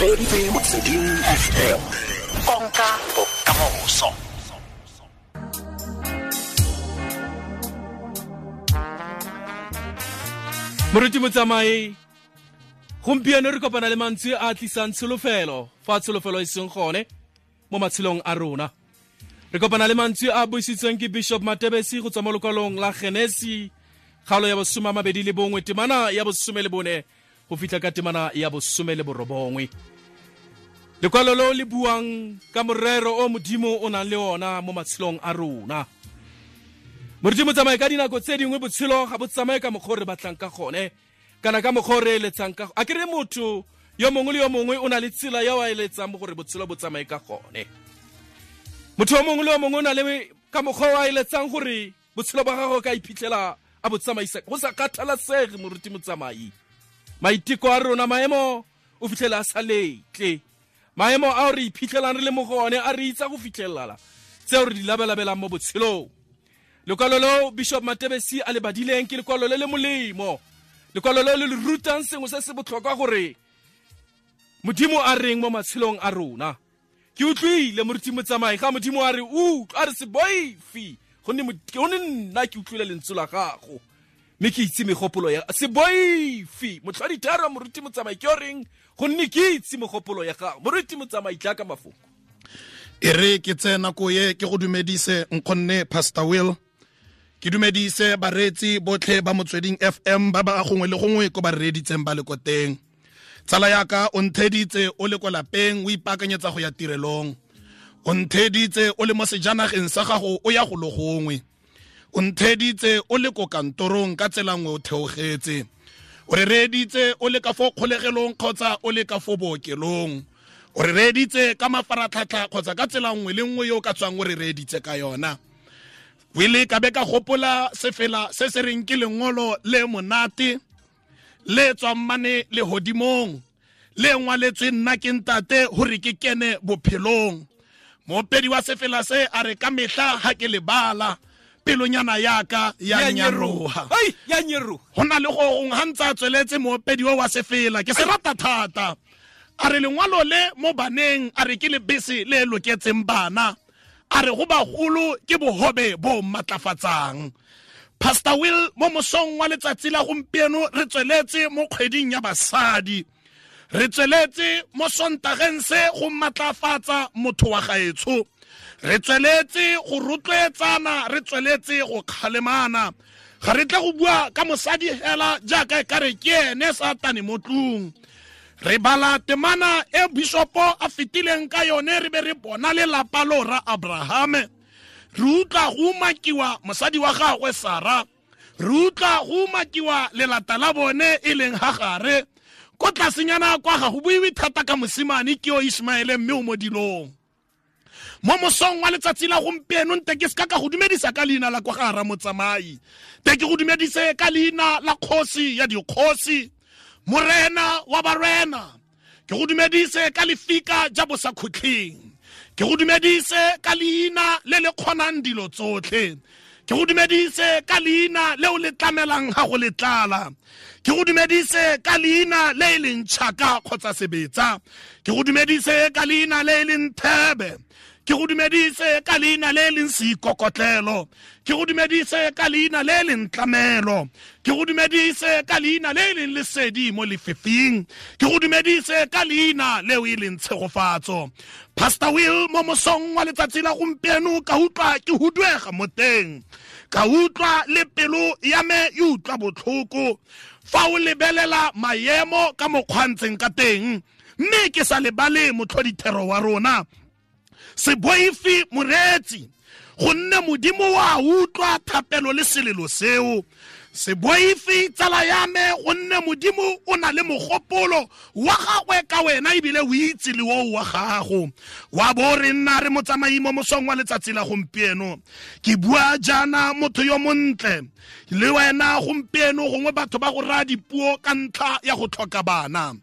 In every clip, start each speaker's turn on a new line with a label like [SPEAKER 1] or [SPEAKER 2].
[SPEAKER 1] Reeditse Motsweding FM, konka bokamoso.
[SPEAKER 2] Moruti Motsamai, gompieno re kopana le mantswe a a tlisang tsholofelo fa tsholofelo e seng gone mo matshelong a rona. Re kopana le mantswe a buisitsweng ke Bishop Matebesi go tswa mo lokwalong la Genesi, kgaolo ya bosome a mabedi le bongwe, temana ya bosome le bone go fitlha ka temana ya bosome le borobongwe. Lekwalo lo le buang ka morero o Modimo o nang le ona mo matshelong a rona. Moruti Motsamai, ka dinako tse dingwe botshelo ga bo tsamaye ka mokgwa o re batlang ka gone, kana ka mokgwa o re eletsang ka. A kere motho yo mongwe le yo mongwe o na le tsela ya o a eletsang gore botshelo bo tsamaye ka gone. Motho yo mongwe le yo mongwe o na le ka mokgwa o a eletsang gore botshelo ba gagwe ka iphitlhela a bo tsamaisa, go sa kgathalasege. Moruti Motsamai, maiteko a rona, maemo o fitlhela a sa letle, maemo ao re iphitlhelang re le mo go one a re itsa go fitlhelala tseo re di labelabelang mo botshelong. Lekwalo leo Bishop Matebesi a le badileng ke lekwalo le le molemo, lekwalo leo le le rutang sengwe se se botlhokwa gore Modimo a reng mo matshelong a rona. Ke utlwile Moruti Motsamai ga Modimo a re utlwa, a re se boife, gonne nna ke utlwile lentswe la gago mme ke itse megopolo ya. Se boife motlhoditharo Moruti Motsamai, ke o reng gonne ke itse megopolo ya gago. Moruti Motsamai, tla ka mafoko.
[SPEAKER 3] E re ke tseye nako ye ke go dumedise nkgonne Pastor Will, ke dumedise bareetsi botlhe ba Motsweding FM ba ba gongwe le gongwe ko ba reeditseng ba le ko teng. Tsala yaka, o ntheditse o le ko lapeng o ipaakanyetsa go ya tirelong, o ntheditse o le mo sejanageng sa gago o ya go lo gongwe, o ntheditse o le ko kantorong ka tsela nngwe o theogetse, o re reeditse o le ka fo kgolegelong kgotsa o le ka fo bookelong, o re reeditse ka mafaratlhatlha kgotsa ka tsela nngwe le nngwe yo o ka tswang o re reeditse ka yona. Wele ka be ka gopola sefela se se reng ke lengolo le monate le tswang mane lehodimong, le ngwaletswe nna ke ntate gore ke kene bophelong. Moopedi wa sefela se a re ka mehla ha ke lebala pelonyana yaka ya nyaroha. Go na le go gongwe ga ntse a tsweletse moopedi o wa sefela, ke se rata thata, a re lengwalo le mo baneng, a re ke lebese le loketseng bana, a re go bagolo ke bohobe bo matlafatsang. Pastor Will, mo mosong wa letsatsi la gompieno re tsweletse mo kgweding ya basadi, re tsweletse mo Sontageng se go matlafatsa motho wa gaetsho, re tsweletse go rotloetsana, re tsweletse go kgalemana. Ga re tle go bua ka mosadi hela jaaka e kare ke ene Satane mo tlung. Re bala temana e bishopo a fetileng ka yone, re be re bona lelapa lo ra Abrahame, re utlwa go umakiwa mosadi wa gagwe Sara, re utlwa go umakiwa lelata la bone e leng Hagare. Ko tlasenyana kwa ga go buiwe thata ka mosimane ke yo Ismaele, mme o mo dilong. Mo mosong wa letsatsi la gompieno nte ke seka ka go dumedisa ka leina la kwa ga Ramotsamai, te ke go dumedise ka leina la kgosi ya dikgosi, morena wa barena, ke go dumedise ka lefika ja bosakhutleng, ke go dumedise ka leina le le kgonang dilo tsotlhe, ke go dumedise ka leina leo le tlamelang ga go le tlala, ke go dumedise ka leina le e leng tšhaka kgotsa sebetsa, ke go dumedise ka leina le e leng thebe, ke go dumedise ka leina le e leng seikokotlelo, ke go dumedise ka leina le e leng tlamelo, ke go dumedise ka leina le e leng lesedi mo lefifing, ke go dumedise ka leina leo e leng tshegofatso. Pastor Will, mo mosong wa letsatsi la gompieno ka utlwa ke huduega mo teng, ka utlwa le pelo ya me e utlwa botlhoko fa o lebelela maemo ka mokgwa ntseng ka teng, mme ke sa lebale motlhodithero wa rona. Se boife moreetsi, gonne Modimo wa utlwa thapelo le selelo seo. Se boife tsala ya me, gonne Modimo o na le mogopolo wa gagwe ka wena, ebile o itse le oo wa gago. Wa bo re nna re motsamai mo mosong wa letsatsi la gompieno. Ke bua jaana motho yo montle le wena gompieno, gongwe batho ba go raya dipuo ka ntlha ya go tlhoka bana.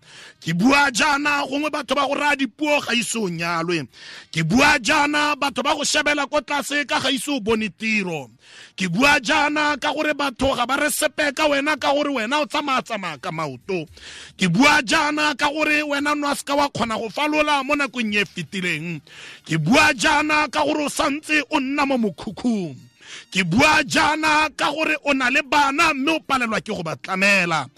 [SPEAKER 3] Ke bua jaana gongwe batho ba go raya dipuo ga ise o nyalwe. Ke bua jaana batho ba go shebela ko tlase ka ga ise o bone tiro. Ke bua jaana ka gore batho ga ba re sepe ka wena ka gore wena o tsamaya ka maoto. Ke bua jaana ka gore wena no a seka wa kgona go falola mo nakong e fetileng. Ke bua jaana ka gore o santse o nna mo mokhukhung. Ke bua jaana ka gore o na le bana mme o palelwa ke go ba tlamela.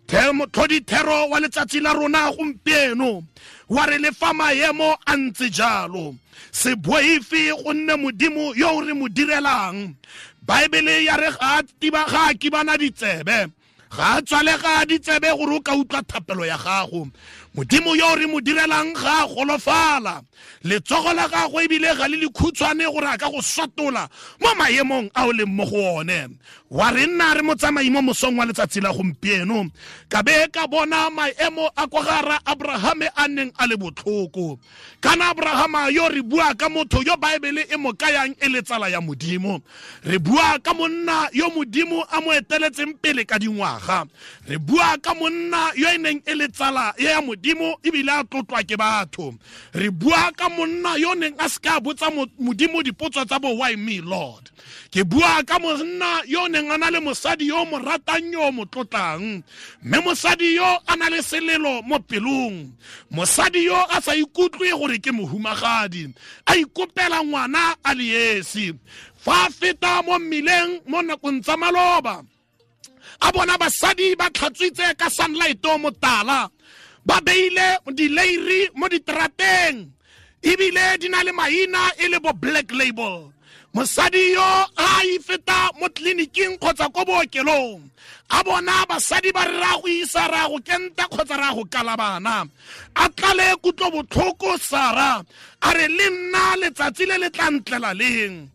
[SPEAKER 3] Tlhodithero wa letsatsi la rona gompieno wa re le fa maemo a ntse jalo, se boife gonne Modimo yo o re mo direlang. Baebele ya re ga a kibana ditsebe, ga a tswalega ditsebe gore o ka utlwa thapelo ya gago. Modimo yo re mo direlang ga a golofala, letsogo la gagwe ebile ga le lekhutshwane gore a ka go sotola mo maemong a o leng mo go one. Wa re nna re motsamai mo mosong wa letsatsi la gompieno, ka be ka bona maemo a kwa gara Abrahame a neng a le botlhoko. Kana Abrahama yo re bua ka motho yo Baebele e mo kayang e le tsala ya Modimo. Re bua ka monna yo Modimo a mo eteletseng pele ka dingwaga. Re bua ka monna yo e neng e le tsala ya Modimo ebile a tlotlwa ke batho. Re bua ka monna yo neng a seka botsa Modimo dipotso tsa bo why me Lord. Ke bua ka monna yo neng a na le mosadi yo mo ratang yo mo tlotlang, mme mosadi yo a na le selelo mo pelong. Mosadi yo a sa ikutlwe gore ke mohumagadi, a ikopela ngwana a le esi. Fa a feta mo mmileng mo nakong tsa maloba, a bona basadi ba tlhatswitse ka sunlight o motala, ba beile dileiri mo diterateng, ebile di na le maina e le bo Black Label. Mosadi yo a ifeta mo tleliniking kgotsa ko bookelong, a bona basadi ba re ra go isa ra go kenta kgotsa ra go kala bana. A tlale kutlobotlhoko Sara, a re le nna letsatsi le le tla ntlela leng.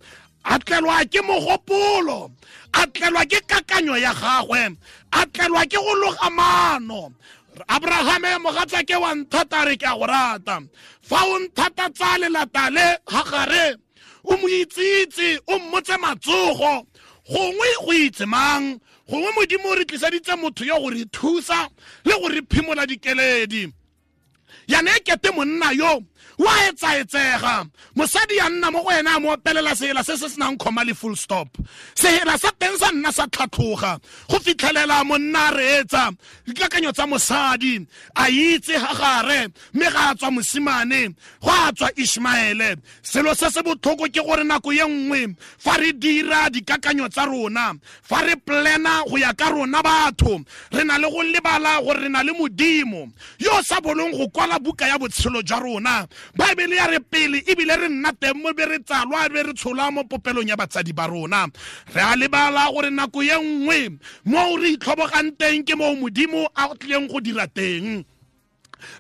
[SPEAKER 3] A tlelwa ke mogopolo, a tlelwa ke kakanyo ya gagwe, a tlelwa ke go loga maano. Abrahame mogatsake wa nthata, re ke a go rata. Fa o nthata tsa lelata le Hagare, o mo itsitse, o mmotse matsogo, gongwe go itse mang, gongwe Modimo o re tliseditse motho yo go re thusa le go re phimola dikeledi. Yana e kete monna yo wa etsaetsega, mosadi ya nna mo go ena a mo opelela sehela se se senang comma le full stop. Sehela sa teng sa nna sa tlhatlhoga go fitlhelela monna a reetsa dikakanyo tsa mosadi, a itse Hagare, mme ga a tswa mosimane, go a tswa Ishmaele. Selo se se botlhoko ke gore nako ye nngwe fa re dira dikakanyo tsa rona, fa re plana go ya ka rona batho, re na le go lebala gore re na le Modimo yo sa bolong go kwala buka ya botshelo jwa rona. Baebele ya re pele ebile re nna teng mo be re tsalwa be re tsholwa mo popelong ya batsadi ba rona. Re a lebala gore nako ye nngwe mo re itlhobogang teng ke moo Modimo a tlileng go dira teng.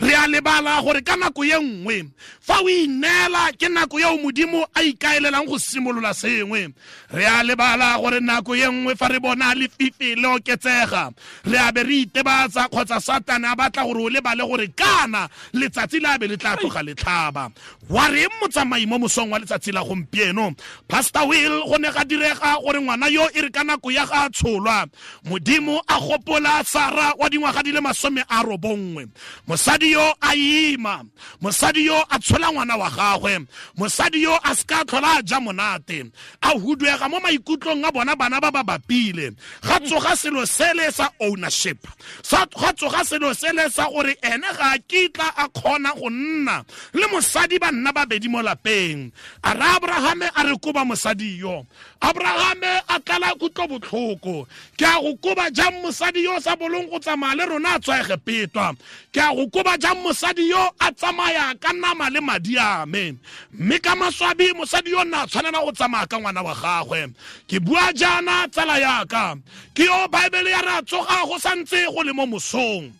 [SPEAKER 3] Re a lebala gore ka nako ye nngwe fa o ineela ke nako eo Modimo a ikaelelang go simolola sengwe. Re a lebala gore nako ye nngwe fa re bona lefifi le oketsega, re a be re itebatsa kgotsa Satane a batla gore o lebale gore kana letsatsi le a be le tla tloga le tlhaba. Wa reng motsamai mo mosong wa letsatsi la gompieno? Pastor Will, go ne ga direga gore ngwana yo e re ka nako ya ga a tsholwa, Modimo a gopola Sara wa dingwaga di le 90. Mosadi yo a ima, mosadi yo a tshola ngwana wa gagwe, mosadi yo a seka tlhola a ja monate, a huduega mo maikutlong a bona bana ba ba bapile. Ga tsoga selo sele sa ownership, ga tsoga selo sele sa gore ene ga a kitla a kgona go nna le mosadi ba nna babedi mo lapeng. A re Abrahame a re koba mosadi yo, Abrahame a tlala kutlobotlhoko. Ke a go koba jang mosadi yo sa bolong go tsamaya le rona a tswa Egepetwa? Ke a go koba jang mosadi yo a tsamaya ka nama le madi a me? Mme ka maswabi mosadi yo nna a tshwanela go tsamaya ka ngwana wa gagwe. Ke bua jaana tsala yaka, ke yo Baebele ya re a tsoga go santse go le mo mosong,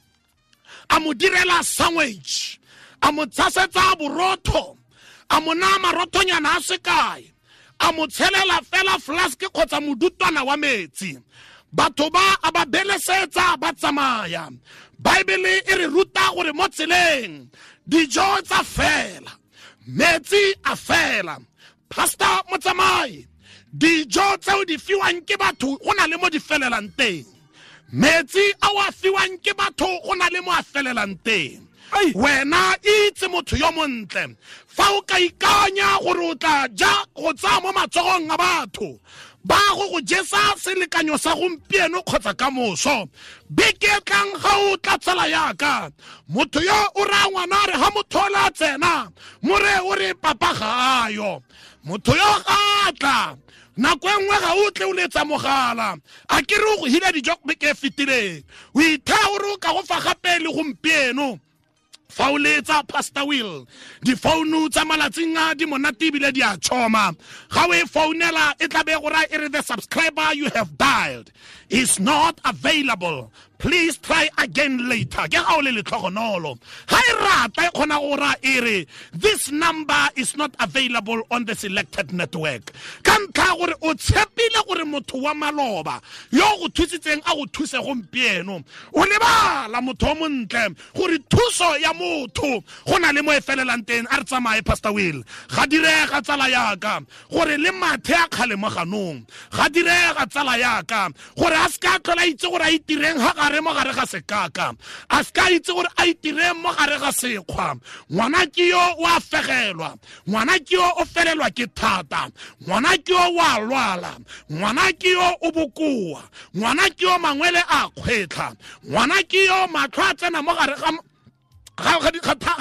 [SPEAKER 3] a mo direla sandwich, a mo tshasetsa borotho, a mo naya marothonyana a sekae, a mo tshelela fela flask kgotsa modutwana wa metsi. Batho ba a ba belesetsa ba tsamaya. Baebele e re ruta gore mo tseleng dijo tsa fela, metsi a fela. Pastor motsamai, dijo tseo di fiwang ke batho go na le mo di felelang teng, metsi a o a fiwang ke batho go na le mo a felelang teng. Wena itse motho yo montle, fa o ka ikanya gore o tla ja go tsaya mo matsogong a batho, Ba go go jesa selekanyo sa gompieno kgotsa ka moso. Beke tlang ga o tla tsala yaka. Motho yo o raya ngwana a re ha motho o la tsena, more o re papa ga ayo. Motho yo ga tla. Nako e nngwe ga o tle o letsa mogala. A ke re o go hila dijo beke e fetileng. O ithaya o re o ka go fa gape le gompieno. Fa o letsa Pastor Will, difounu tsa malatsing a di monate ebile di a tšhoma. Ga o e founela e tla be go raya e re the subscriber you have dialed is not available. Please try again later. Ke ga o le letlhogonolo. Ga e rata e kgona go raya e re this number is not available on the selected network. Ka ntlha gore o tshepile gore motho wa maloba yo go thusitseng a go thuse gompieno, o lebala motho o montle gore thuso ya motho go na le mo e felelang teng. A re tsamaye Pastor Will. Ga direga tsala yaka gore le mathe a kgale mo ganong. Ga direga tsala yaka gore a se ka tlhola itse gore a itireng ga gare mo gare ga sekaka, a se ka itse gore a itireng mo gare ga sekgwa. Ngwana ke yo o a fegelwa, ngwana ke yo o felelwa ke thata, ngwana ke yo o a lwala, ngwana ke yo o bokoa, ngwana ke yo mangwele a kgwetlha, ngwana ke yo matlho a tsena mo gare ga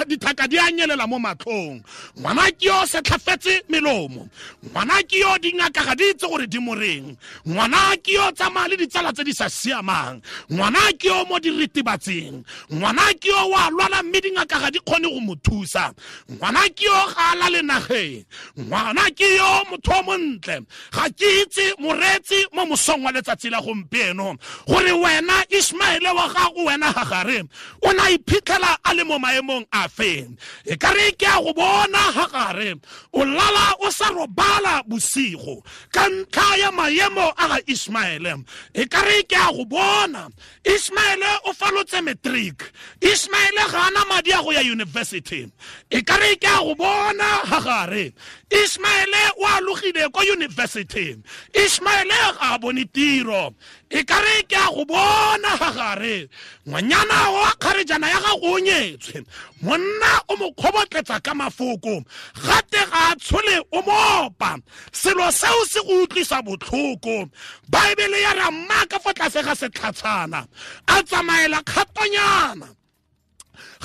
[SPEAKER 3] dithaka di a nyelela mo matlhong, ngwana ke yo setlhafetse melomo, ngwana ke yo dingaka ga di itse gore di moreng, ngwana ke yo tsamaya le ditsala tse di sa siamang, ngwana ke yo mo diritibatsing, ngwana ke yo wa lwala mme dingaka ga di kgone go mo thusa, ngwana ke yo ga a lale nageng, ngwana ke yo motho o montle. Ga ke itse moreetsi mo mosong wa letsatsi la gompieno gore wena Ismaele wa gago, wena Hagare, o na iphitlhela a le mo maemong a feng. E ka re ke a go bona Hagare o lala o sa robala bosigo ka ntlha ya maemo a ga Ismaele. E ka re ke a go bona Ismaele o falotse matric, Ismaele ga ana madi a go ya university. E ka re ke a go bona Hagare Ismaele o alogile ko university, Ismaele ga a bone tiro. E ka re ke a go bona Hagare ngwanyana wa kgarejana ya gago o nyetswe, monna o mo kgobotletsa ka mafoko, gate ga a tshole o mopa. Selo seo se go utlwisa botlhoko. Baebele ya re mma ka fa tlase ga setlhatshana a tsamaela kgatonyana,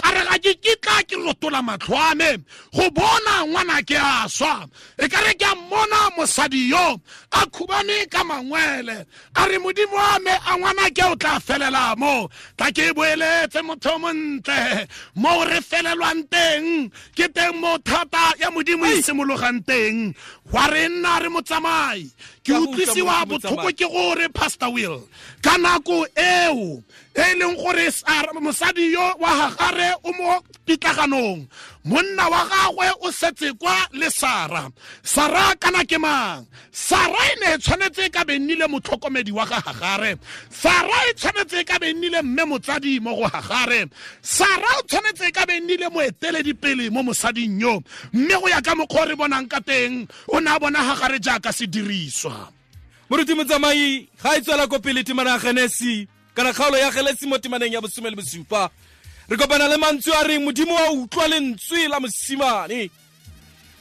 [SPEAKER 3] ga re ga ke kitla ke rotola matlho a me go bona ngwana ke a swa. E ka re ke a mmona mosadi yo a khubane ka mangwele, a re modimo wa me a ngwana ke o tla felela mo. Tla ke boeletse motho o montle mo re felelwang teng, ke teng mo thata ya modimo e simologang teng. Wa re nna re motsamai. Ke utlwisiwa botlhoko ke gore Pastor Will ka nako eo e leng gore mosadi yo wa Hagare o mo pitlaganong, monna wa gagwe o setse kwa le Sara. Sara kana ke mang? Sara e ne e tshwanetse ka be nnile motlhokomedi wa ga Hagare. Sara e tshwanetse ka be nnile mme motsadi mo go Hagare. Sara o tshwanetse ka be nnile moeteledipele mo mosading yo, mme go ya ka mokgwa re bonang ka teng o ne a bona Hagare jaaka sediriswa.
[SPEAKER 2] Moruti Motsamai, ga e tswela ko pele temana ya Genesi kana kgaolo ya Genesi mo temaneng ya 17, re kopana le mantswe a reng modimo wa utlwa lentswe la mosimane.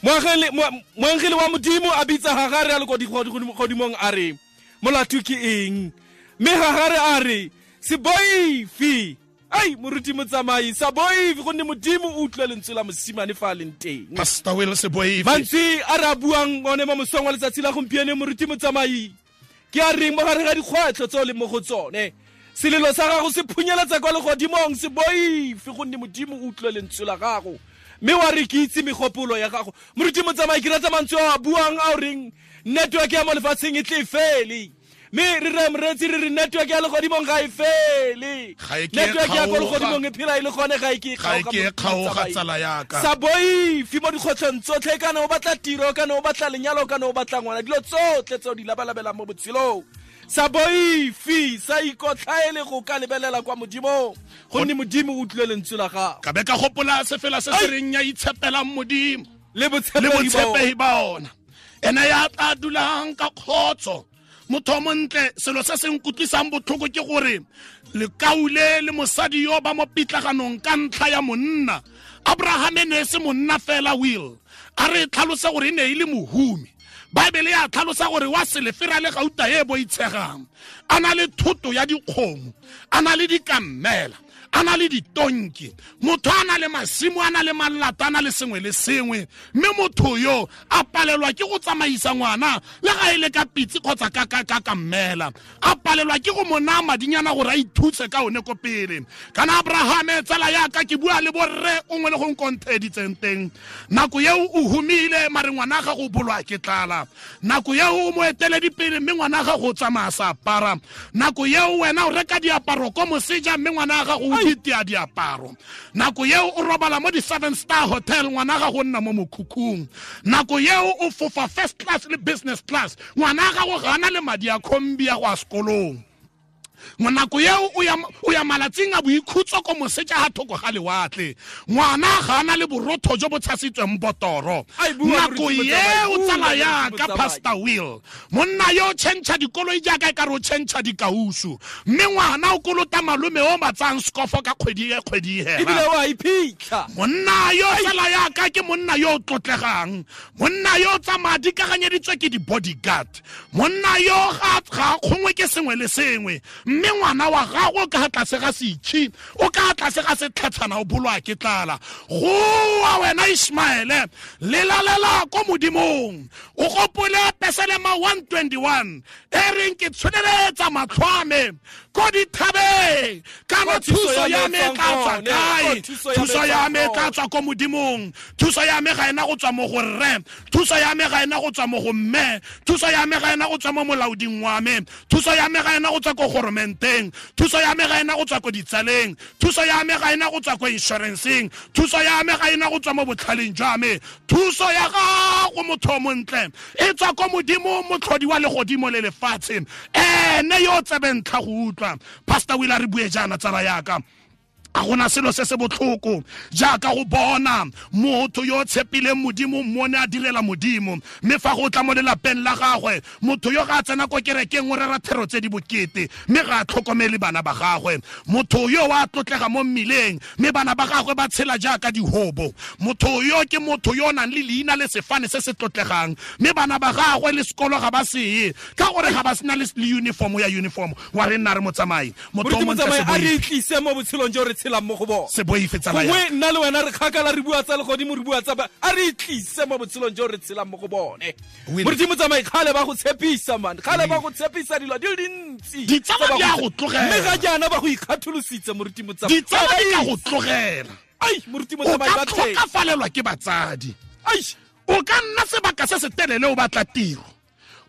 [SPEAKER 2] Moangele wa modimo a bitsa Hagare a le ko godimong a re molato ke eng? Mme Hagare a re se boife. Ai moruti Motsamai, sa boife gonne modimo o utlwa lentswe la mosimane fa a leng teng.
[SPEAKER 3] Pastor Will, se boife.
[SPEAKER 2] Mantswe a re a buang one mo mosong wa letsatsi la gompieno moruti Motsamai ke a reng mo gare ga dikgwetlho tse o leng mo go tsone, selelo sa gago se phunyeletsa kwa legodimong, se boife gonne modimo o utlwe lentswe la gago. Mme wa re ke itse megopolo ya gago. Moruti Motsamai, ke rata mantswe a a buang a o reng network ya mo lefatsheng e tle e fele, mme re re moreetsi re re network ya legodimong ga e fele, network ya ko legodimong e phela e le gone, ga e ke
[SPEAKER 3] e kgaoga tsala yaka.
[SPEAKER 2] Sa boife mo dikgotlhong tsotlhe, kana o batla tiro, kana o batla lenyalo, kana o batla ngwana, dilo tsotlhe tse o di labalabelang mo botshelong. Sa boife, sa ikotlhaele go ka lebelela kwa modimong, gonne modimo o utlwile lentswe la gago.
[SPEAKER 3] Ka be ka gopola sefela se se reng ya itshepelang modimo
[SPEAKER 2] le botshepegi
[SPEAKER 3] ba ona, ene ya tla dulang ka kgotso Motho o montle, selo se se nkutlwisang botlhoko ke gore lekaule le mosadi yo ba mo pitlaganong ka ntlha ya monna. Abraham e ne se monna fela, Will. A re tlhalose gore e ne e le mohumi. Bible ya tlhalosa gore wa selefera le gauta e boitshegang. A na le thoto ya dikgomo, a na le dikammela, a na le ditonki. Motho a na le masimo, a na le malata, a na le sengwe le sengwe. Mme motho yo a palelwa ke go tsamaisa ngwana le ga e le ka pitse kgotsa ka kammela. A palelwa ke go mo naya madinyana gore a ithuse ka one ko pele. Kana Abraham, tsala ya ka, ke bua le borre o ngwe le go nkontheditseng teng. Nako eo o humile, mare ngwana ga go bolwa ke tlala. Nako eo o mo eteledipele, mme ngwana ga go tsamaya sa apara. Nako eo wena o reka diaparo ko moseja, mme ngwana ga go ditia diaparo. Nako eo o robala mo di 7-star hotel, ngwana ga go nna mo mokhukhung. Nako eo o fofa first class le business class, ngwana ga go gana le madi a kombi ya go a sekolong. Nako eo o ya malatsing a boikhutso ko moseja ha thoko ga lewatle, ngwana ga ana le borotho jo bo tshasitsweng botoro. Nako eo tsala ya ka Pastor Will, monna yo tšhentšha dikoloi jaaka e ka re o tšhentšha dikausu, mme ngwana o kolota malome o matsang skofo ka kgwedi e kgwedi hela.
[SPEAKER 2] Ebile o a iphitlha.
[SPEAKER 3] Monna yo tsala ya ka ke monna yo o tlotlegang, monna yo tsamaya dikaganyeditswe ke di-bodyguard, monna yo ga kgongwe ke sengwe le sengwe. Mme ngwana wa gago ka tlase ga setšhi, o ka tlase ga setlhatshana, o bolwa ke tlala. Goa wena Ishmaele, lelalela ko modimong. O gopole Pesalema 121 e reng ke tsholeletsa matlho a me ko dithabeng, kana thuso ya me e tla tswa kae? Thuso ya me e tla tswa ko modimong. Thuso ya me ga ena go tswa mo go rre, thuso ya me ga ena go tswa mo go mme, thuso ya me ga ena go tswa mo molaoding wa me, thuso ya me ga ena go tswa ko goromenteng, thuso ya me ga ena go tswa ko ditsaleng, thuso ya me ga ena go tswa ko insurance-eng, thuso ya me ga ena go tswa mo botlhaleng jwa me. Thuso ya gago, motho o montle, e tswa ko modimo, motlhodi wa legodimo le lefatshe, ene yo tsebentlha go utlwa. Pastor Will, a re bue jaana, tsala yaka. A gona selo se se botlhoko jaaka go bona motho yo tshepileng modimo, mmone a direla modimo, mme fa go tla mo lelapeng la gagwe, motho yo ga a tsena ko kerekeng o rera thero tse di bokete, mme ga a tlhokomele bana ba gagwe. Motho yo wa tlotlega mo mmileng, mme bana ba gagwe ba tshela jaaka dihobo. Motho yo ke motho yo o nang le leina le sefane se se tlotlegang, mme bana ba gagwe le sekolo ga ba seye ka gore ga ba sena le uniform ya uniform. Wa re nna re motsamai, motho o montle,
[SPEAKER 2] a re tlise mo botshelong jo re tshelang mo go bona.
[SPEAKER 3] Se boife tsala ya
[SPEAKER 2] gongwe nna le wena re kgakala, re bua tsa legodimo, re bua tsa ba, a re tlise mo botshelong jo re tshelang mo go bone. Moruti Motsamai, kgale ba go tshepisa, man, kgale ba go tshepisa dilo di le dintsi.
[SPEAKER 3] Ditsala di a go tlogela.
[SPEAKER 2] Mme ga jaana ba go ikgatholositse, Moruti Motsamai.
[SPEAKER 3] Ditsala di ka go tlogela.
[SPEAKER 2] Ai, Moruti Motsamai,
[SPEAKER 3] o ka tlhokafalelwa ke batsadi.
[SPEAKER 2] Ai,
[SPEAKER 3] o ka nna sebaka se se telele o batla tiro,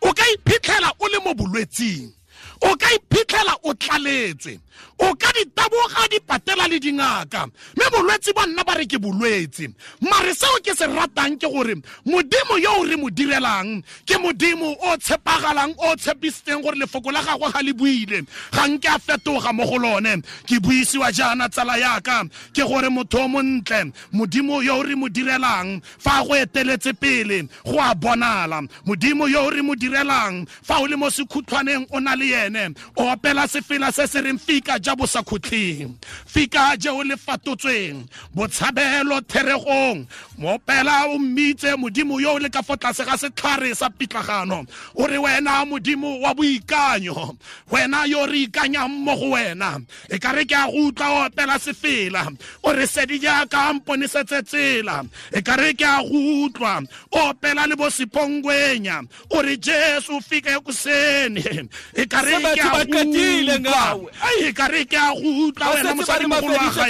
[SPEAKER 3] o ka iphitlhela o le mo bolwetsing, o ka iphitlhela o tlaletswe, o ka ditaboga dipatela le dingaka, mme bolwetse ba nna ba re ke bolwetse. Mare seo ke se ratang ke gore modimo yo o re mo direlang ke modimo o tshepagalang, o tshepisitseng gore lefoko la gagwe ga le buile, ga nke a fetoga mo go lone. Ke buisiwa jaana, tsala yaka, ke gore motho o montle, modimo yo o re mo direlang fa go eteletse pele go a bonala. Modimo yo o re mo direlang fa o le mo sekhutlhwaneng o na le yene, o opela sefela se se reng fika ja bo sa khutleng, fika je o le fatotsweng, botshabelo theregong. Moopela o mmitse modimo yo o le ka fo tlase ga setlhare sa pitlagano, o re wena modimo wa boikanyo, wena yo re ikanyang mo go wena. E ka re ke a go utlwa o opela sefela, o re sedi jaaka mponesetse tsela. E ka re ke a go utlwa o opela le bo Sipongwenya, o re Jesu fika ekuseni. E ka re ke a go utlwa, e ka re ke a go utlwa wena mosadi mogolo wa gae,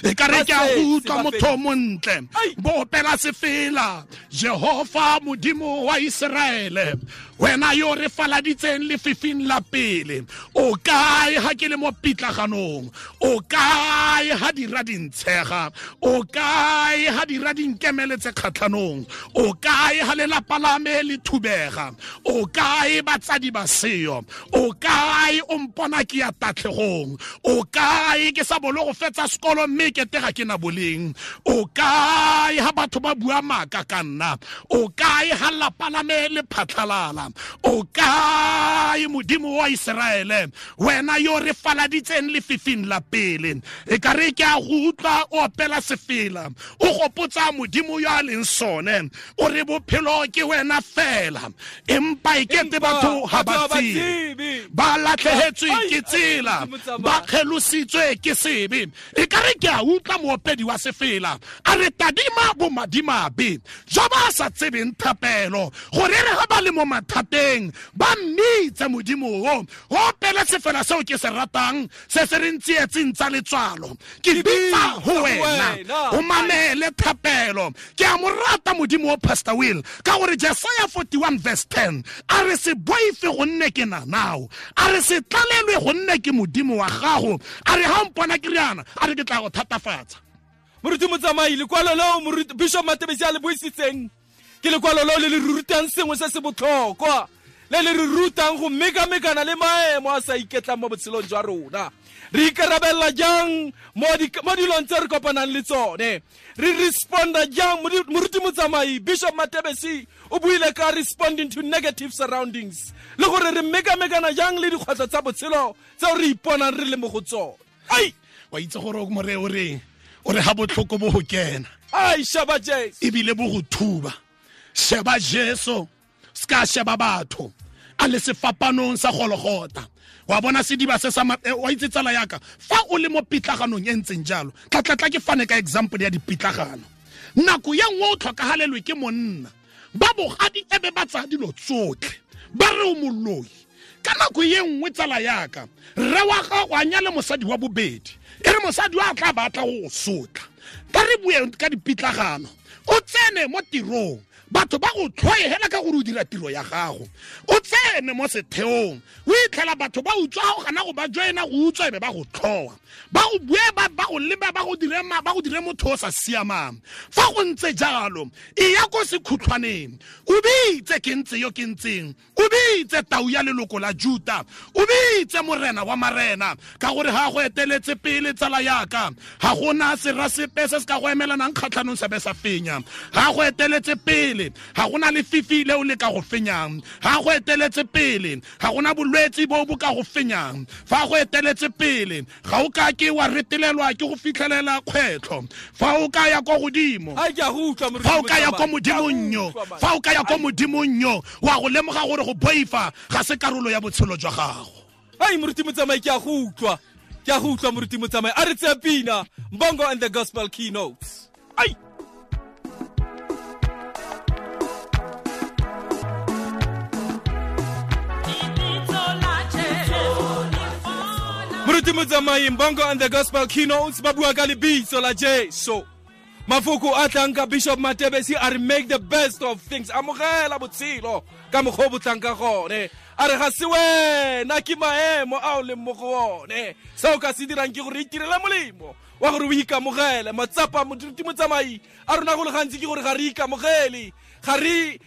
[SPEAKER 3] e ka re ke a go utlwa motho o montle, bo opela sefela, Jehova modimo wa Iseraele, wena yo re faladitseng lefifing la pele. O kae ha ke le mo pitlaganong? O kae ha dira dintshega? O kae ha dira dinkemeletse kgatlhanong? O kae ha lelapa la me le thubega? O kae batsadi ba seo? seyo. O kae o mpona ke ya tatlhegong? O kae ke sa bolo go fetsa sekolo mme ke tega ke na boleng? O kae ha batho ba bua maaka ka nna? O kae ha lapa la me le phatlhalala? O kae Modimo wa Iseraele, wena yo re faladitseng lefifing la pele? E ka re ke a go utlwa o opela sefela, o gopotsa Modimo yo a leng sone, o re bophelo ke wena fela, empa e kete batho ha ba tsebe, ba latlhehetswe ke tsela, ba kgelositswe ke sebe. E ka re ke a utlwa moopedi wa sefela a re tadima bomadimabe jo ba sa tsebeng thapelo, gore re ga ba le mo mathateng ba mmitse Modimo o. Opele sefela seo ke se ratang, se se re ntsietseng tsa letswalo, ke bitsa ho wena, o mamele thapelo. Ke a mo rata Modimo o, Pastor Will, ka gore Jesaya 41 verse 10 a re se boife gonne ke na nao, a re se tlalelwe gonne ke Modimo wa gago, a re ha mpona ke riana, a re ke tla go thatafatsa.
[SPEAKER 2] Moruti Motsamai, lekwalo leo Moruti Bishop Matebesi a le buisitseng ke lekwalo leo le le rutang sengwe se se botlhokwa, le le re rutang go mekamekana le maemo a sa iketlang mo botshelong jwa rona. Re ikarabella jang mo dilong tse re kopanang le tsone? Re responda jang? Moruti Motsamai, Bishop Matebesi o buile ka responding to negative surroundings, le gore re mekamekana jang le dikgwetlho tsa botshelo tseo re iponang re le mo go tsone.
[SPEAKER 3] Ai, wa itse gore o more o reng? O re ha botlhoko bo go kena,
[SPEAKER 2] ai sheba Jesu,
[SPEAKER 3] ebile bo go thuba. Sheba Jesu, ska sheba batho, a le sefapanong sa Golgotha. Wa bona sediba se sa wa itse tsala yaka, fa o le mo pitlaganong e ntseng jalo, tla ke fane ka example ya dipitlagano. Nako ya nngwe o tlhokahalelwe ke monna, ba bogadi ebe ba tsaya dilo tsotlhe, ba re o moloi. Ka nako ye nngwe tsala yaka, rre wa gago a nyale mosadi wa bobedi, e re mosadi wa tla batla go sotla. Ka re bue ka dipitlagano, o tsene mo tirong, batho ba go tlhoe hela ka gore o dira tiro ya gago. O tsene mo setheong, o itlhela batho ba utswa go gana go ba joina go utswa ebe ba go tlhoa, ba go bue ba go leba, ba go dire ba go dire motho o sa siamang. Fa go ntse jalo, e ya ko sekhutlhwaneng, o bitse ke ntse yo ke ntseng, o bitse tau ya leloko la Juta, o bitse morena wa marena, ka gore ha go eteletse pele tsala yaka, ha gona sera sepe se se ka go emelanang kgatlhanong se be sa fenya. Ha go eteletse pele, ha gona lefifi leo le ka go fenyang. Ha go eteletse pele, ha gona bolwetse bo bo ka go fenyang. Fa go eteletse pele, ga o ka ke wa retelelwa ke go fitlhelela kgwetlho. Fa o ka ya kwa godimo, fa o ka ya kwa modimong yo, fa o ka ya kwa modimong yo, wa go lemoga gore go boifa ga se karolo ya botshelo jwa gago.
[SPEAKER 2] Ai Moruti Motsamai, ke a go utlwa, ke a go utlwa Moruti Motsamai. A re tseye pina, Mbongo and the Gospel Keynotes. Ai. Moruti Motsamai, Mbongo and the Gospel Keynotes ba bua ka lebitso la Jesu. Mafoko a tlang ka Bishop Matebesi a re make the best of things. Amogela botshelo ka mokgwa o bo tlang ka gone. A re ga se wena, ke maemo a o leng mo go one. Se o ka se dirang ke gore itirele molemo wa gore o ikamogele. Matsapa Moruti Motsamai a rona go le gantsi ke gore ga re ikamogele, ga re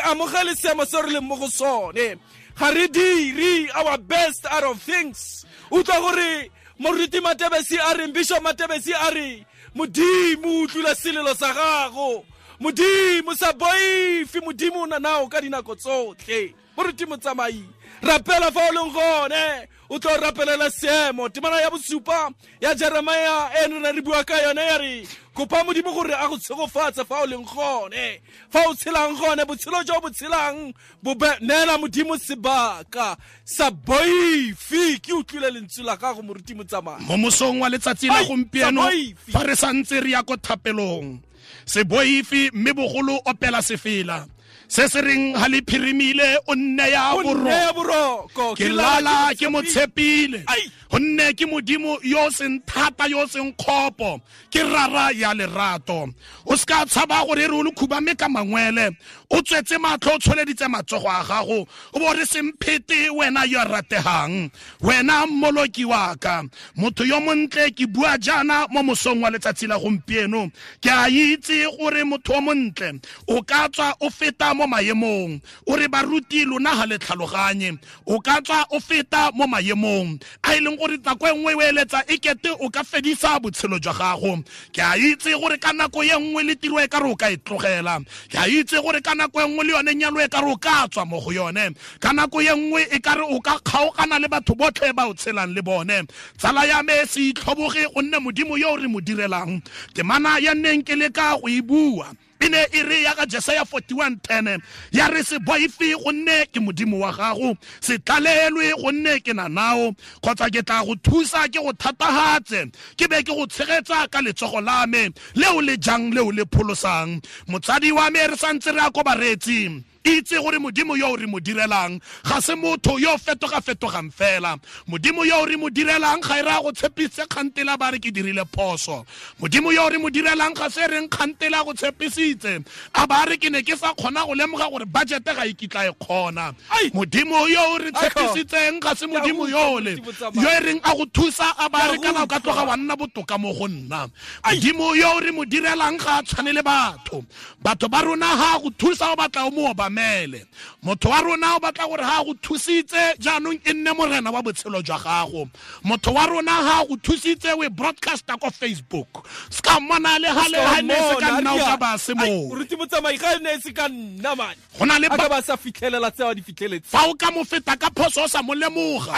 [SPEAKER 2] amogele seemo se re leng mo go sone, ga re dire our best out of things. Utlwa gore Moruti Matebesi a reng, Bishop Matebesi a re Modimo utlwile selelo sa gago, Modimo sa boife, Modimo o na nao ka dinako tsotlhe. Moruti Motsamai, rapela fa o leng gone, o tlo rapelela seemo. Temana ya bosupa ya Jeremia e ne re bua ka yone ya re kopa Modimo gore a go tshegofatse fa o leng gone, fa o tshelang gone, botshelo jo bo tshelang bo neela Modimo sebaka sa boife. Ke utlwile lentswe la gago Moruti Motsamai
[SPEAKER 3] mo mosong wa letsatsi la gompieno, fa re santse re ya ko thapelong. Se boife, mme bogolo opela sefela se se reng ha le phirimile o nne ya boroko, ke lala ke mo tshepile, gonne ke Modimo yo seng thata yo seng kgopo, ke rara ya lerato. O ska tshaba gore re o le khubame ka mangwele, o tswetse matlho o tsholeditse matsogo a gago, o bo re semphete wena yo rategang, wena mmoloki wa ka. Motho yo montle, ke bua jaana mo mosong wa letsatsi la gompieno, ke a itse gore motho o montle o ka tswa o feta feta mo maemong o re baruti lona ga le tlhaloganye, o ka tswa o feta mo maemong a e leng gore nako e nngwe o eletsa e kete o ka fedisa botshelo jwa gago. Ke a itse gore ka nako e nngwe le tiro e ka re o ka e tlogela, ke a itse gore ka nako e nngwe le yone nyalo e ka re o ka tswa mo go yone, ka nako e nngwe e ka re o ka kgaogana le batho botlhe ba o tshelang le bone. Tsala ya me, se itlhoboge gonne Modimo yo re mo direlang, temana ya nneng ke le ka go e bua e ne e re ya ka Jesaya 41:10 ya re se boife gonne ke Modimo wa gago, se tlalelwe gonne ke na nao, kgotsa ke tla go thusa ke go thatahatse, ke be ke go tshegetsa ka letsogo la me leo le jang leo le pholosang. Motsadi wa me, re santse re a ko bareetsing, itse gore Modimo yo re mo direlang ga se motho yo fetoga-fetogang fela. Modimo yo re mo direlang ga e raya go tshepise kgantela ba re ke dirile phoso. Modimo yo re mo direlang ga se reng kgantela go tshepisitse a ba re ke ne ke sa kgona go lemoga gore budget ga e kitla e kgona. Modimo yo re tshepisitseng ga se Modimo yole yo e reng a go thusa a ba re kana o ka tloga wa nna botoka mo go nna. Modimo yo re mo direlang ga a tshwane le batho. Batho ba rona ha go thusa o batla o mo obamele. Motho wa rona o batla gore ha go thusitse jaanong e nne morena wa botshelo jwa gago. Motho wa rona ha go thusitse we broadcaster ko Facebook, ska mmona le ha le ha ne se ka nna o ka ba se mo.
[SPEAKER 2] Moruti Motsamai, ga ne se ka nna man
[SPEAKER 3] go na le
[SPEAKER 2] a ka ba sa fitlhelela tse a di fitlheletse.
[SPEAKER 3] Fa o ka mo feta ka phoso o sa mo lemoga,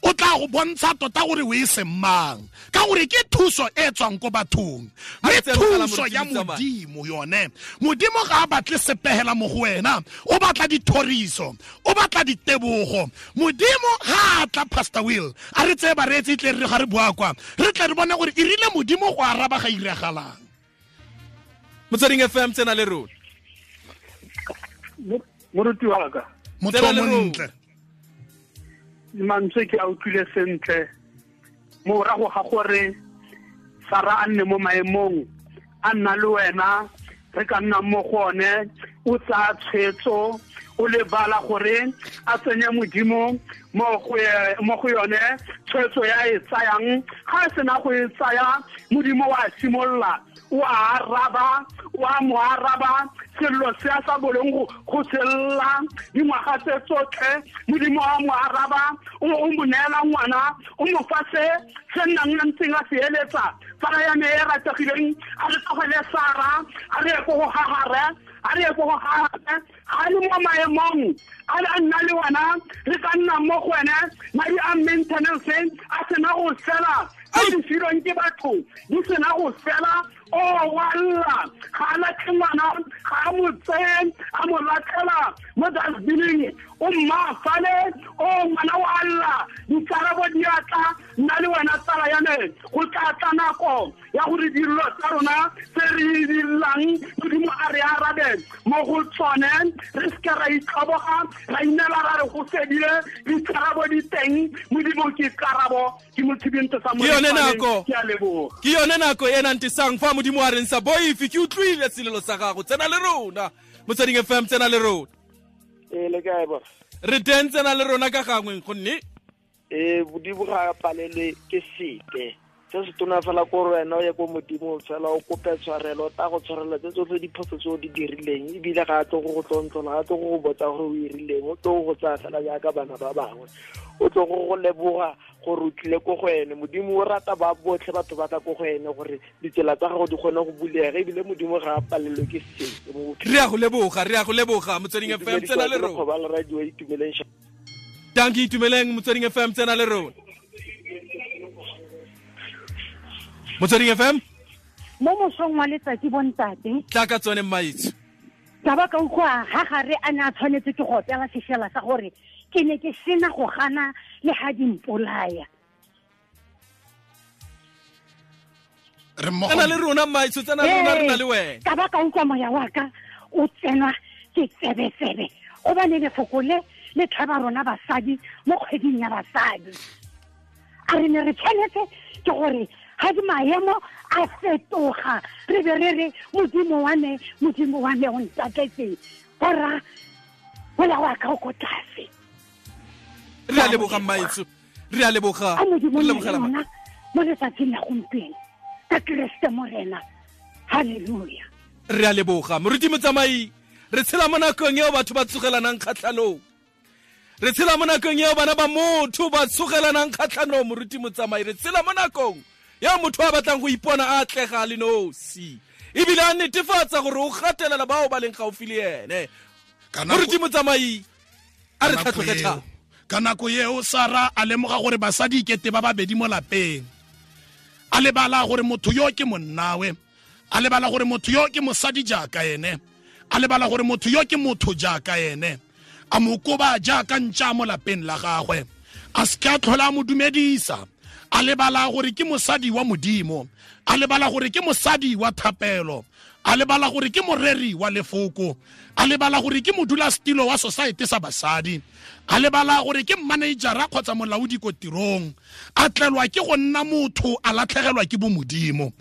[SPEAKER 3] o tla go bontsha tota gore o e seng mang, ka gore ke thuso e tswang ko bathong, mme thuso ya Modimo yone, Modimo ga a batle sepegela mo go wena, o batla dithoriso, o batla ditebogo. Modimo ga a tla, Pastor Will, a re tseye bareetsi tle re ga re bua kwa, re tle re bone gore e rile Modimo go araba ga iragalang.
[SPEAKER 2] Motsweding FM, tsena le rona.
[SPEAKER 4] Moruti wa ka,
[SPEAKER 3] motho o montle,
[SPEAKER 4] mantswe ke a utlwile sentle. Morago ga gore Sara a nne mo maemong a nna le wena re ka nna mo go one, o tsaya tshwetso, o lebala gore a tsenye Modimo mo go yone tshwetso ya e tsayang. Ga e sena go e tsaya, Modimo wa simolola o a araba, o a mo araba sello se a sa boleng go sella dingwaga tse tsotlhe. Modimo wa mo araba, o mo neela ngwana, o mo fa se se nnang a ntseng a se eletsa. Tsala ya me e rategileng, a re tlogele Sara, a re ye ko go Hagare, a re ye ko go Hagare. Ga le mo maemong a le a nna le wena, re ka nna mo go wene. Madi a maintenance a sena go fela, tse di filweng ke batho di sena go fela. O wa lla, ga a latlhe ngwana, ga a mo tseye a mo latlhela mo dustbining, o mmaafale, o ngwana wa lla, dikarabo di a tla. Nna le wena tsala ya me, go tla tla nako ya gore dilo tsa rona tse re di llang Modimo a re arabe mo go tsone, re seke ra itlhoboga, ra inela ra re go fedile. Dikarabo di teng, Modimo ke karabo. Ke motshibinto sa
[SPEAKER 2] Ke yone nako.
[SPEAKER 4] Ke a leboga.
[SPEAKER 2] Ke yone nako e nantisang fa Modimo a reng sa boife, ke utlwile selelo sa gago, tsena le rona. Motsweding FM, tsena le rona.
[SPEAKER 5] Ee, le kae bo?
[SPEAKER 2] Re teng, tsena le rona ka gangwe gonne
[SPEAKER 5] Ee, Modimo ga a palelwe ke sepe. Se se tona fela ko gore wena o ye ko Modimo fela o kope tshwarelo, o tla go tshwarela tse tsotlhe diphoso tse o di dirileng, ebile ga a tlo go go tlontlola, ga a tlo go go botsa gore o irileng, o tlo go tsaya fela jaaka bana ba bangwe, o tlo go go leboga gore o tlile ko go ene. Modimo o rata ba botlhe batho ba tla ko go ene gore ditsela tsa gago di kgone go bulega, ebile Modimo ga a palelwe ke sepe mo bophelong.
[SPEAKER 2] Re a go leboga, re a go leboga. Motsweding FM, tsena le rona.
[SPEAKER 5] Lekgoba la radio, Itumeleng.
[SPEAKER 2] Dankie, Itumeleng. Motsweding FM, tsena le rona. Motsweding FM.
[SPEAKER 6] Mo mosong wa letsatsi bontate.
[SPEAKER 2] Tla ka tsone mmaetsho.
[SPEAKER 6] Ka ba ka utlwa ga gare a ne a tshwanetse ke go opela sefela sa gore ke ne ke sena go gana le ga di mpolaya.
[SPEAKER 3] Re mmogo.
[SPEAKER 2] Tsena le rona mmaetsho, tsena le rona, re na le wena.
[SPEAKER 6] Ka ba ka utlwa moya wa ka o tsenwa ke tsebetsebe, gobane lefoko le le tlhaba rona basadi mo kgweding ya basadi. A re ne re tshwanetse ke gore ga di maemo a fetoga, re be re re Modimo wa me, Modimo wa me o ntatletseng, borra moya wa ka o ko tlase.
[SPEAKER 2] Re a leboga mmaetsho, re a leboga.
[SPEAKER 6] A Modimo
[SPEAKER 2] Re
[SPEAKER 6] nne
[SPEAKER 2] lebogela
[SPEAKER 6] le
[SPEAKER 2] ma-
[SPEAKER 6] rona mo letsatsing la gompieno ka Keresete Morena. Halleluja.
[SPEAKER 2] Re a leboga. Moruti Motsamai, Re tshela mo nakong eo batho ba tsogelanang kgatlhanong. Re tshela mo nakong eo bana ba motho ba tsogelanang kgatlhanong, moruti Motsamai. Re tshela mo nakong eo motho a batlang go ipona a atlega le nosi, ebile a netefatsa gore o gatelela bao ba leng gaufi le ene. Moruti Motsamai, a re tlhatlhoge thata.
[SPEAKER 3] Ka nako eo Sara a lemoga gore basadi ikete ba babedi mo lapeng. A lebala gore motho yo ke monnawe, a lebala gore motho yo ke mosadi jaaka ene, a lebala gore motho yo ke motho jaaka ene. A mo koba jaaka ntša mo lapeng la gagwe, a se a tlhola a mo dumedisa. A lebala gore ke mosadi wa Modimo, a lebala gore ke mosadi wa thapelo, a lebala gore ke moreri wa lefoko, a lebala gore ke modulasetilo wa society sa basadi, a lebala gore ke managera kgotsa molaodi ko tirong. A tlelwa ke go nna motho, a latlhegelwa ke bomodimo.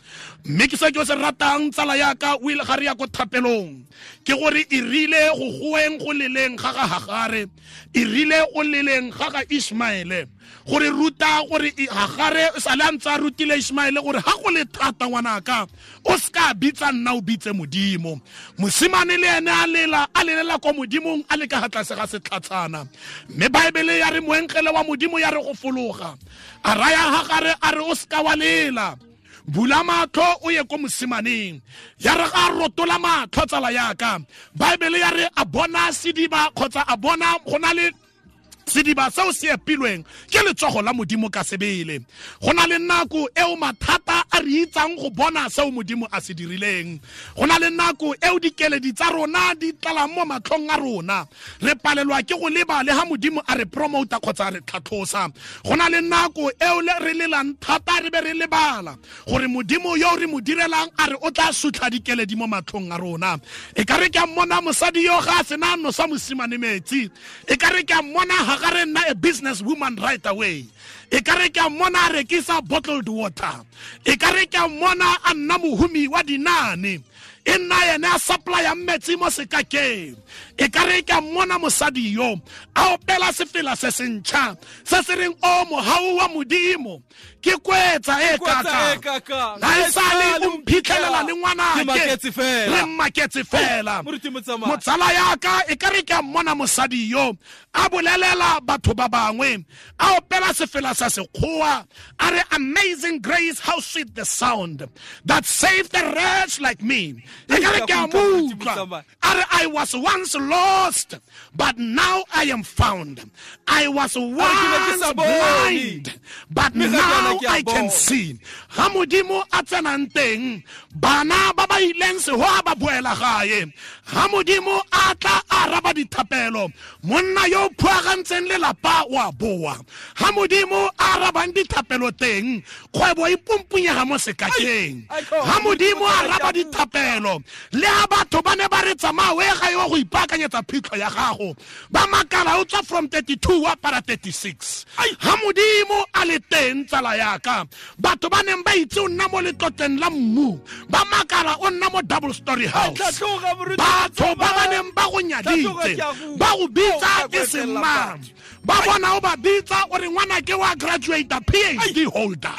[SPEAKER 3] Mme ke se ke se ratang tsala yaka o ile ga re ya ko thapelong, ke gore e rile go goeng go leleng ga ga Hagare, e rile go leleng ga ga Ishmaele, gore ruta gore Hagare sa le a ntse a rutile Ishmaele gore ha go le thata ngwanaka o ska bitsa nna o bitse Modimo. Mosimane le ene a lela, a lelela ko Modimong a le ka tlase ga setlhatshana. Mme Baebele ya re moengele wa Modimo ya re go fologa, a raya Hagare a re o ska wa lela, bula matlho o ye ko mosimaneng. Ya re ga rotola matlho tsala yaka, Baebele ya re a bona sediba kgotsa a bona go na le sediba seo se epilweng ke letsogo la Modimo ka sebele. Go na le nako eo mathata a re itsang go bona seo Modimo a se dirileng. Go na le nako eo dikeledi tsa rona di tlalang mo matlhong a rona, re palelwa ke go leba le ha Modimo a re promota kgotsa a re tlhatlhosa. Go na le nako eo re lelang thata re be re lebala gore Modimo yo re mo direlang a re o tla sutlha dikeledi mo matlhong a rona. E ka re ke a mmona mosadi yo ga a sena nosa mosimane metsi, e ka re ke a mmona Hagare nna a business woman right away, e ka re ke a mmona a rekisa bottled water, e ka re ke a mmona a nna mohumi wa dinane, e nna ene a supplya metsi mo sekakeng. E ka re ke a mmona mosadi yo a opela sefela se sentšha se se reng o mohau wa Modimo ke kwetsa e kaka, na e sale o mphitlhelela le ngwanake re mmaketse fela. Motsala yaka e ka re ke a mmona mosadi yo a bolelela batho ba bangwe, a opela sefela sa sekgowa a re amazing grace, how sweet the sound that saved a wretch like me. E ka re ke a mo utlwa a re I was once lost but now I am found, I was once blind but now I can see. Ha Modimo a tsenang teng, bana ba ba ileng sehoa ba boela gae. Ha Modimo a tla araba dithapelo, monna yo phuagantseng lelapa wa boa. Ha Modimo a arabang dithapelo teng, kgwebo e pumpunyega mo sekakeng. Ha Modimo a araba dithapelo, le ha batho ba ne ba re tsamaya o ye gae wa go ipaakanyetsa phitlho ya gago, ba makala o tswa from 32 wa para 36. Ha Modimo a le teng tsala yaka, batho ba neng ba itse o nna mo letlotleng la mmu, ba makala o nna mo double story house. Batho ba ba neng ba go nyaditse, ba go bitsa ke semang, ba bona o ba bitsa o re ngwana ke wa graduate PhD holder.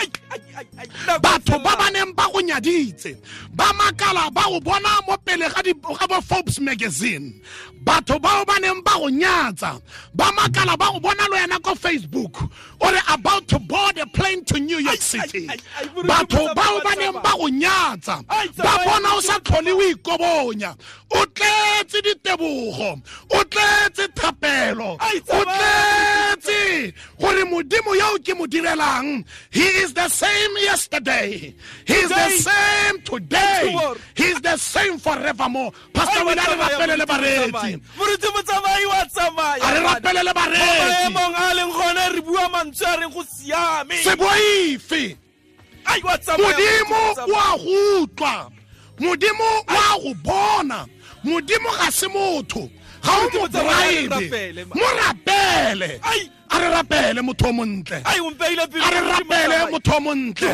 [SPEAKER 3] Batho ba ba neng ba go nyaditse, ba makala ba go bona mo pele ga bo Forbes magazine. Batho bao ba neng ba go nyatsa, ba makala ba go bona le wena ko Facebook o re about to board a plane to New York City. Batho bao ba neng ba go nyatsa, ba bona o sa tlhole o ikobonya, o tletse ditebogo, o tletse thapelo, o tletse gore Modimo yo ke mo direlang, he is the same yesterday, he is the same today, he is the same forevermore. Pastor Will, a re rapele le bareetsi.
[SPEAKER 2] Moruti Motsamai wa tsamaya.
[SPEAKER 3] A re rapele le bareetsi.
[SPEAKER 2] Maemong a leng gone re bua mantswe a reng go siame.
[SPEAKER 3] Se boife. Modimo wa go utlwa, Modimo wa go bona, Modimo ga se motho, ga o mo bribe, mo rapele. A re rapele motho o montle, a re rapele motho o montle, a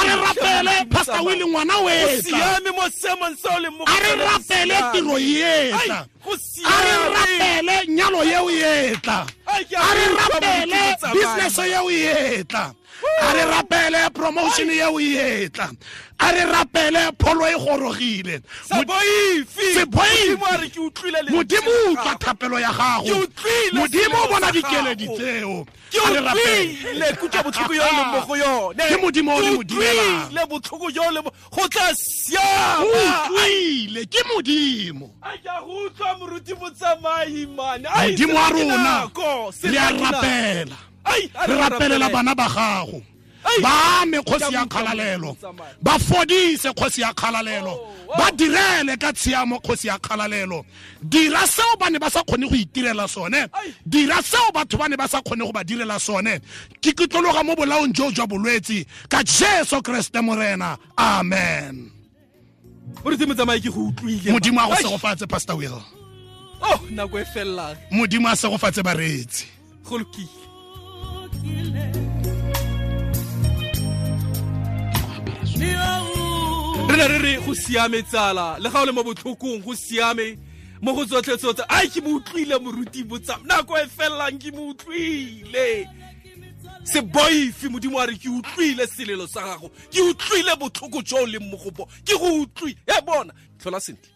[SPEAKER 3] re rapele Pastor Willie ngwana o etla, a re rapele tiro e etla, a re rapele nyalo eo e etla, a re rapele business eo e etla, A re rapele promotion eo e etla. A re rapele pholo e gorogile.
[SPEAKER 2] Se boife.
[SPEAKER 3] Se boife.
[SPEAKER 2] Modimo a re ke utlwile lentswe
[SPEAKER 3] Modimo
[SPEAKER 2] la
[SPEAKER 3] utlwa
[SPEAKER 2] gago.
[SPEAKER 3] thapelo ya
[SPEAKER 2] Ke
[SPEAKER 3] gago.
[SPEAKER 2] utlwile
[SPEAKER 3] Modimo o
[SPEAKER 2] selelo
[SPEAKER 3] bona
[SPEAKER 2] sa
[SPEAKER 3] dikeledi
[SPEAKER 2] gago.
[SPEAKER 3] tseo.
[SPEAKER 2] Ke
[SPEAKER 3] A re rapele.
[SPEAKER 2] utlwile kutlo botlhoko yo o leng mo go yone.
[SPEAKER 3] Ke Modimo o re
[SPEAKER 2] Ke
[SPEAKER 3] mo direlang.
[SPEAKER 2] utlwile botlhoko jo o leng mo go tla
[SPEAKER 3] O
[SPEAKER 2] siama.
[SPEAKER 3] utlwile ke Modimo.
[SPEAKER 2] Ai, ke a go utlwa moruti Motsamai, man. Ai,
[SPEAKER 3] Modimo wa
[SPEAKER 2] sena ke
[SPEAKER 3] rona
[SPEAKER 2] nako,
[SPEAKER 3] re
[SPEAKER 2] sena
[SPEAKER 3] a
[SPEAKER 2] ke nako.
[SPEAKER 3] rapela.
[SPEAKER 2] Ai, a
[SPEAKER 3] Re rapelela
[SPEAKER 2] rapele.
[SPEAKER 3] bana ba gago.
[SPEAKER 2] Ai.
[SPEAKER 3] Ba ame kgosi
[SPEAKER 2] Ke
[SPEAKER 3] ya
[SPEAKER 2] a utlwa
[SPEAKER 3] kgalalelo.
[SPEAKER 2] Motsamai.
[SPEAKER 3] Ba fodise kgosi ya kgalalelo.
[SPEAKER 2] Oh, oh.
[SPEAKER 3] Ba direle ka tshiamo kgosi ya kgalalelo. Dira seo ba ne ba sa kgone go itirela sone.
[SPEAKER 2] Ai.
[SPEAKER 3] Dira seo batho ba ne ba sa kgone go ba direla sone. Ke kitlologa mo bolaong jo jwa bolwetse ka Jesu Kriste Morena. Amen.
[SPEAKER 2] Moruti Motsamai, ke go utlwile.
[SPEAKER 3] Modimo a go
[SPEAKER 2] Ai.
[SPEAKER 3] segofatse, Pastor Will.
[SPEAKER 2] Oh, nako e fellang.
[SPEAKER 3] Modimo a segofatse bareetsi.
[SPEAKER 2] Go lokile. Re ne re re go siame tsala le ga o le mo botlhokong go siame mo go tsotlhe tsotlhe. Ai, ke mo utlwile moruti Motsamai, nako e fellang ke mo utlwile. Se boife, Modimo a re ke utlwile selelo sa gago, ke utlwile botlhoko jo o leng mo go bo, ke go utlwile. E bona, tlhola sentle.